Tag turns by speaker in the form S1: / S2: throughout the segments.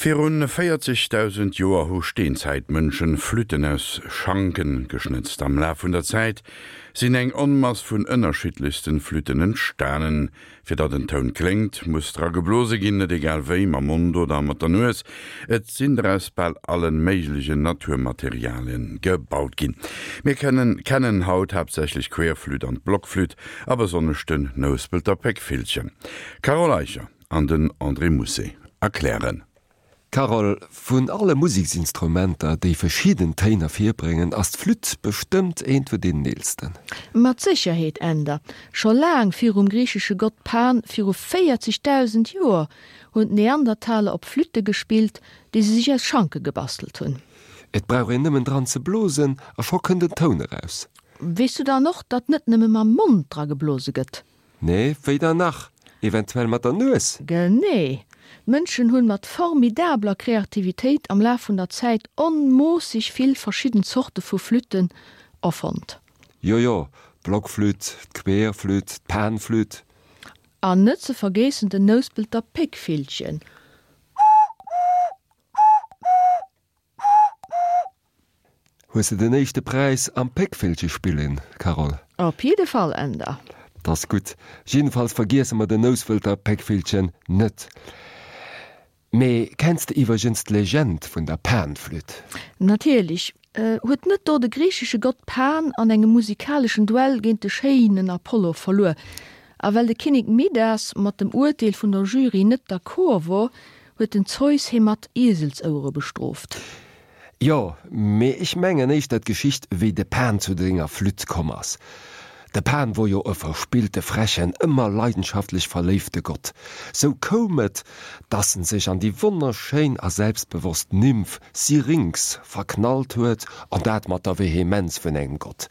S1: Virun 40.000 Joer hu Steenzäitmënschen Flütten aus Schanken geschnëtzt. Am Laf vun der Zäit sinn eng Onmass vun ënnerschiddlechsten Flütten entstanen. Fir datt en Toun kléngt, muss dra geblose ginn, net egal wéi, mam Mond oder mat der Nues. Et sinn der aus bal allen méiglegen Naturmaterialien gebaut ginn. Mir kennen kennen haut haaptsächlech d'Querflütt an d'Blockflütt a besonnesch den Nouspelter Péckvillchen. Carole Eicher. An den André Mousset erklären.
S2: Carole, vun alle Museksinstrumenter, déi verschidden Téin ervirbréngen, ass d'Flütt bestëmmt eent vun deenen eelsten.
S3: Mat Sécherheet, Änder. Scho laang virum griichesche Gott Pan, viru 40.000 Joer, hunn d'Neandertaler op Flütte gespillt, déi se sech aus Schanke gebastelt hunn.
S2: Et brauch een nëmmen dran ze blosen a scho kënnt en Toun eraus.
S3: Weess du dann och, datt net nëmme mam Mond dra geblose gëtt?
S2: Nee, wéi dann nach? Eventuell mat der Nues?
S3: Genee! D'Mënschen hunn mat formidabler Kreativitéit am Laf vun der Zäit onmoosseg vill verschidden Zorte vu Flütten erfonnt.
S2: Jo jo, d'Blockflütt, d'Querflütt, d'Panflütt.
S3: An net ze vergeessen den Nouspelter Péckvillchen.
S2: Hues de den éischte Präis am Péckvillche spillen, Carole?
S3: Op jidde Fall, Änder.
S2: 't ass gutt. Jiddefalls vergiesse mer den Nouspelter Péckvillchen net. Mee kenns de iwwergens d'Legend vun der Panflütt?
S3: Natierlech. Huet net do de griichesche Gott Pan an engem musikaleschen Duell géint de schéinen Apollo verluer? A well de Kinnek Midas mat dem Urteel vun der Jury net d'accord wor, huet den Zeus hie mat Ieselsouere bestrooft.
S2: Jo, mee ech mengen éischter d'Geschicht wéi de Pan zu senger Flütt komm ass. De Pan wor jo e verspillte, frechen, ëmmer leidenschaftlech verléifte Gott. Sou koum et, dass en sech an déi wonnerschéin a selbstbewosst Nymph Syrinx verknallt huet, an dat mat der Vehemenz vun engem Gott.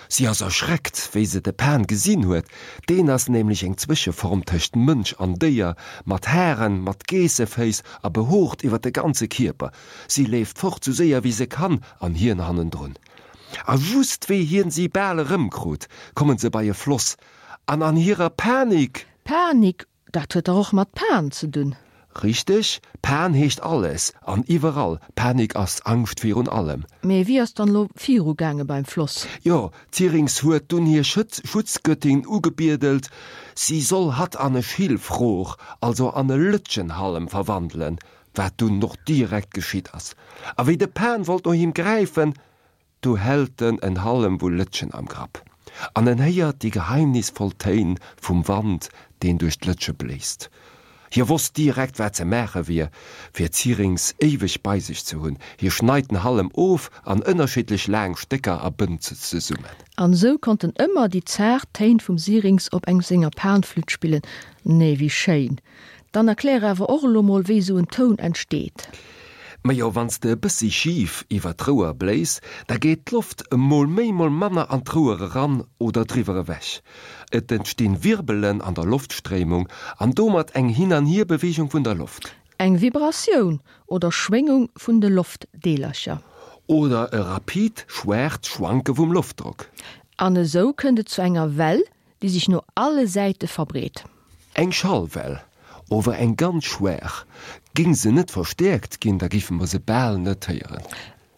S2: Si ass erschreckt, wéi se de Pan gesinn huet, deen ass nämlech eng Zwëscheform tëscht Mënsch an Déier, mat Haren, mat Geesseféiss a behoort iwwer de ganze Kierper. Si leeft fort, sou séier wéi se kann, an hien hannendrun. A just wéi hien si bal erëmkrut, kommen se bei e Floss, an an hirer Panik.
S3: Panik, dat huet dach och mat Pan ze dunn.
S2: Richteg, Pan heescht alles an iwwerall, Panik ass Angscht virun allem.
S3: Mee wéi ass dann elo viru gaange beim Floss?
S2: Jo, d'Syrinx huet dunn hir Schutzgöttin ugebiedelt, si soll hatt an e Schilfrohr, also an e Lëtschenhallem verwandelen, wat dunn och direkt geschitt ass. A wéi de Pan wollt no him gräifen, du hält en en Hallem vu Lëtschen am Grapp, an en héiert déi geheimnisvoll Téin vum Wand, deen duerch d'Lëtsche bléist. Hie wosst direkt, wat ze maache wier, fir d'Syrinx éiweg bei sech ze hunn, Hie schneit den Hallem of an ënnerschiddlech laang Stécker a bënnt se zesummen.
S3: An esou konnt en ëmmer déi zaart Téin vum Syrinx op engem senger Panflütt spillen. Nee, wéi schéin! Dann erklär awer och elo mol wéi esou en Toun entsteet.
S2: Majo, wann s de e bëssi schif iwwer d'Rouer bléis, da geet d'Loft mol méi mol manner an d'Rouer eran oder driwwer ewech. Et entstinn Wirbelen an der Loftstréimung an domat eng Hin-an-Hier-Beweegung vun der Loft.
S3: Eng Vibratioun oder Schwéngung vun de Loftdeelercher.
S2: Oder e rapid, schwaacht Schwanke vum Loftdrock.
S3: An esou kënnt et zu enger Well, déi sech no alle Säite verbreet.
S2: Eng Schallwell, ower eng ganz schwaach. Géing se net verstäerkt ginn, da géife mer se bal net héieren.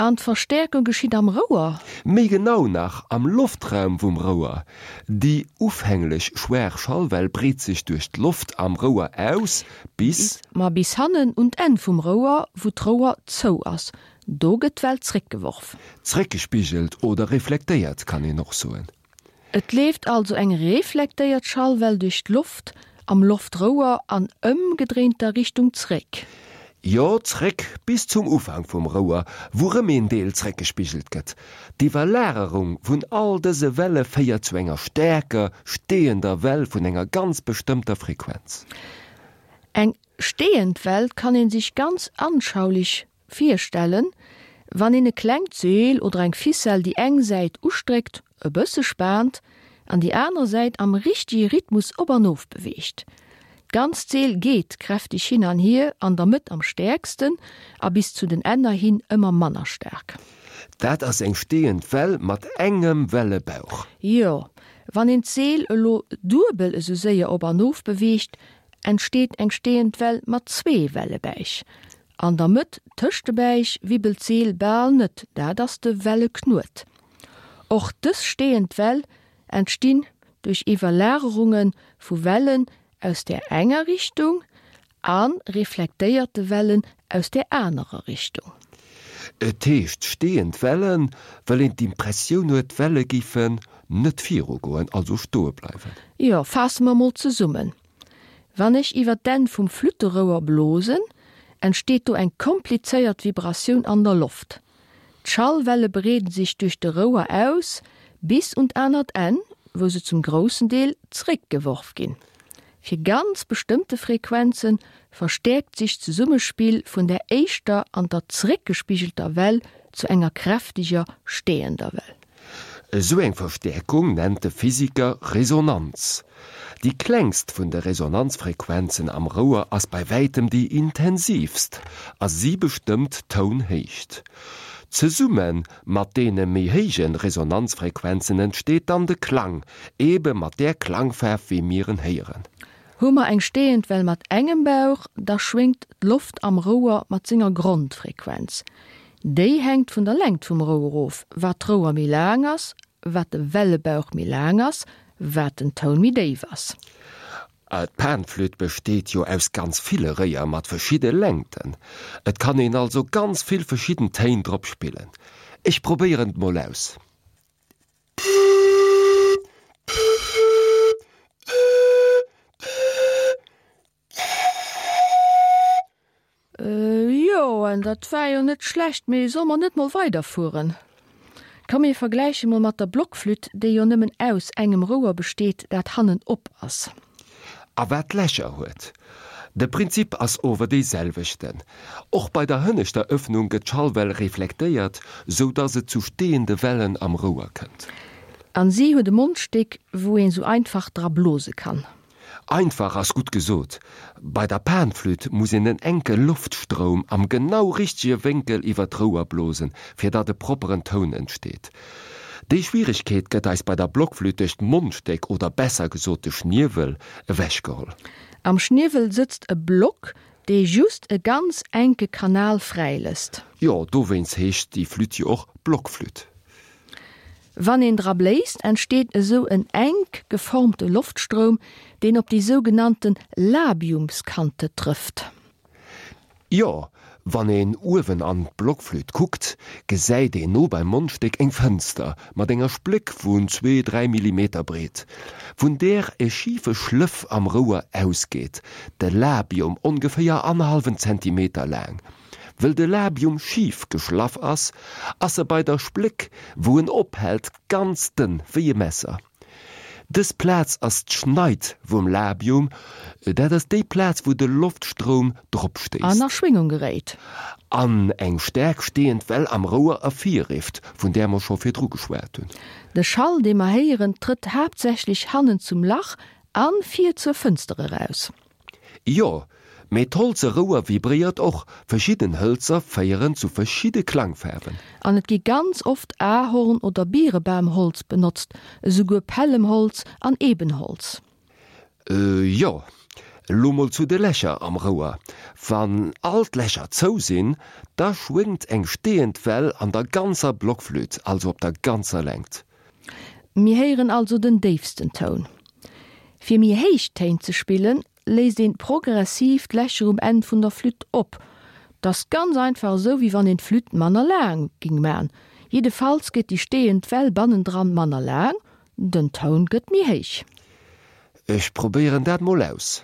S3: An d'Verstäerkung geschitt am Rouer?
S2: Méi genau nach, am Loftraum vum Rouer. Déi ufänglech schwaach Schallwell breet sech duerch d'Loft am Rouer aus, bis.
S3: Ma bis hannen un d'Enn vum Rouer, wou d'Rouer zou ass. Do gëtt d'Well zréckgeworf.
S2: Zréckgespigelt oder reflektéiert, kann een och soen.
S3: Et leeft also eng reflektéiert Schallwell duerch d'Loft am Loftrouer an ëmgedréinter Richtung zréck.
S2: Jo, zréck bis zum Ufank vum Rouer, wou rëm een Deel zréckgespigelt gëtt. D'Iwwerlagerung vun all dëse Welle féiert zu enger staarker, steeënder Well vun enger ganz bestëmmter Frequenz.
S3: Eng steeënd Well kann een sech ganz anschaulich Virstellen, wann een e klengt Seel oder eng Ficelle déi eng Säit ustréckt, e bësse spaant an déi aner Säit am richtege Rhythmus op an of beweegt. D'ganzt Seel geet kräfteg hin an hier, an der Mëtt am stäerksten a bis zu den Enner hin ëmmer manner staark.
S2: Dat ass eng steeënd Well mat engem Wellebauch.
S3: Jo, wann een d'Seel elo duebel esou séier op an of beweegt, entsteet eng steeënd Well mat zwee Wellebäich. An der Mëtt tëscht de Bäich wibbelt d'Seel bal net, dat ass de Welleknuet. Och dës steeënd Well entstinn duerch Iwwerlagerunge vu Wellen aus där enger Richtung a reflektéierte Wellen aus där anerer Richtung.
S2: Et heescht steeënd Wellen, well een d'Impressioun huet, d'Welle géifen net virugoen, also stoe bleiwen.
S3: Jo, faasse mer mol zesummen, Wann ech iwwer d'Enn vum Flütterouer blosen, entsteet do eng komplizéiert Vibratioun an der Loft. D'Schallwelle breeden sech duerch de Rouer aus bis un d'anert Enn, wou se zum groussen Deel zréckgeworf ginn. Fir ganz bestëmmte Frequenze verstäerkt sech d'Zesummespill vun der éischter an der zréckgespigelter Well zu enger kräfteger steeënder Well.
S2: Esou eng Verstäerkung nennt de Physiker Resonanz. Déi klengst vun de Resonanzfrequenzen am Rouer ass bei wäitem déi intensiivst a si bestëmmt d'Tounhéicht. Zesumme mat deene méi héije Resonanzfrequenzen entsteet dann de Klang, ebe mat där Klangfaarf wéi mir en héieren.
S3: Hu mer eng steeënd Well mat engem Bauch, da schwéngt d'Loft am Rouer mat senger Grondfrequenz. Déi hänkt vun der Längt vum Rouer of, wat d'Rouer méi laang ass, wat de Wellebauch méi laang ass, wat den Toun méi déif ass.
S2: D'Panflütt besteet jo aus ganz ville Réier mat verschidde Längten. Et kann een also ganz vill verschidden Téin drop spillen. Ech probéieren et mol aus.
S3: Jo, en dat war jo net schlecht, mee solle mer net mol weiderfueren? Komm mir vergläiche mol mat der Blockflütt, déi jo nëmmen aus engem Rouer besteet, dat hannen op ass.
S2: A wat Lächer huet. De Prinzip ass ower dee selwechten. Och bei der hënneschter Ëffnung gëtt d'Schallwell reflektéiert, sou dass et zu steeënde Wellen am Rouer kënnt.
S3: An si huet e Mondstéck, wou een sou einfach dra blose kann.
S2: Einfach ass gutt gesot. Bei der Panflütt muss een en enke Loftstroum am genau richtege Wénkel iwwer d'Rouer blosen, fir datt e propperen Toun entsteet. Déi Schwieregkeet gëtt eis bei der Blockflütt duerch d'Mondstéck oder besser gesot de Schniewel ewechgeholl.
S3: Am Schniewel sëtzt e Block, dee just e ganz enke Kanal fräilësst.
S2: Jo, dowéinst heescht déi Flütt jo och Blockflütt.
S3: Wann een dra bléist, entsteet esou en enk geformte Loftstroum, deen op déi sougenannte Labiumskante trëfft.
S2: Jo, wann een uewen an d'Blockflütt kuckt, gesäit een no beim Mondstéck eng Fënster mat enger Spléck vun zwee, dräi Millimeter breet, vun där e schife Schlëff am Rouer ausgeet, de Labium, ongeféier annerhallwen Zentimeter laang. Wëll de Labium schif geschlaff ass, ass e bei der Spléck, wou en ophält, ganz dënn wéi e Messer. Dës Plaz ass d'Schneid vum Labium, dat ass déi Plaz, wou de Loftstroum drop
S3: An a
S2: stéisst.
S3: Schwéngung geréit.
S2: An eng staark steeënd Well am Rouer ervirrifft, vun där mer scho virdru geschwat hunn.
S3: De Schall, dee mer héieren, trëtt haaptsächlech hannen zum Lach a vir zur Fënster eraus.
S2: Jo, mee d'holze Rouer vibréiert och, verschidden Hëlzer féieren zu verschidde Klangfaarwen.
S3: An et gi ganz oft Ahorn oder Birebamholz benotzt, esouguer Pällemholz an Ebenholz.
S2: Jo, lo mol zu de Lächer am Rouer. Wann all d'Lächer zou sinn, da schwéngt eng steeënd Well an der ganzer Blockflütt, also op der ganzer Längt.
S3: Mir héieren also den déifsten Toun. Fir méi héich Téin ze spillen, léisst een progressiv d'Lächer um Enn vun der Flütt op. T'ass ganz einfach esou wéi wann een d'Flütt manner laang ging man. Jiddefalls gëtt déi steeënd Well bannendran manner laang, den Toun gëtt méi héich.
S2: Ech probéieren dat mol aus.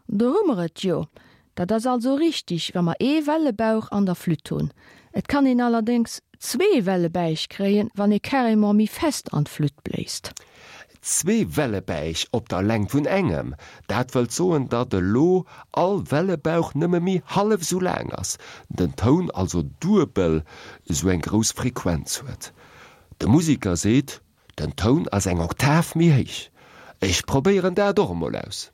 S3: Do hu mer et jo. Dat ass also richtig, wa mer ee Wellebauch an der Flütt hunn. Et kann een allerdéngs zwee Wellebäich kréien, wann ee carrément méi fest an d'Flütt bléist.
S2: Zwee Wellebäich op der Längt vun engem, dat wëllt soen, datt elo all Wellebauch nëmme méi hallef esou laang ass, den Toun also duebel esou eng grouss Frequenz huet. De Musiker seet, Den Toun ass eng Oktav méi héich. Ech probéieren dat och emol aus.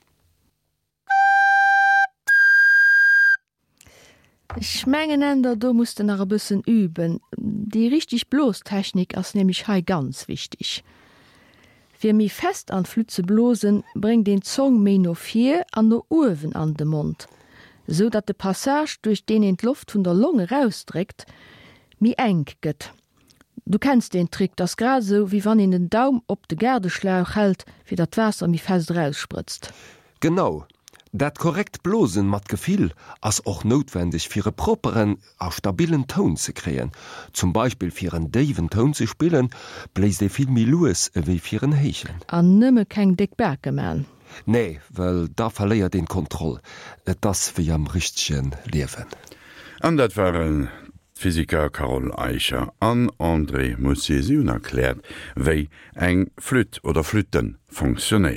S3: Ech mengen Änder, do muss de nach e bëssen üben. Déi richteg Blostechnik ass nämlech hei ganz wichteg. Fir méi fest an d'Flütt ze blosen, bréngt een d'Zong méi no vir an no uewen an de Mond, esou datt de Passage, duerch deen een d'Loft vun der Long erausdréckt, méi enk gëtt. Du kenns deen Trick, 't ass grad esou, wéi wann een den Daum op de Gaardeschlauch hält, fir datt d'Waasser méi fest eraussprëtzt.
S2: Genau, dat korrekt Blosen mat Gefill ass och noutwendeg fir e propperen a stabillen Toun ze kréien. Zum Beispill fir en déiwen Toun ze spillen, bléist ee vill méi lues ewéi fir en héijen.
S3: An nëmme keng déck Bake man.
S2: Nee, well da verléiert een d'Kontroll. Et ass wéi am richtege Liewen.
S1: An dat waren d'Physiker Carole Eicher an André Moussier. Si hunn erkläert, wéi eng Flütt oder Flütte fonctionnéieren.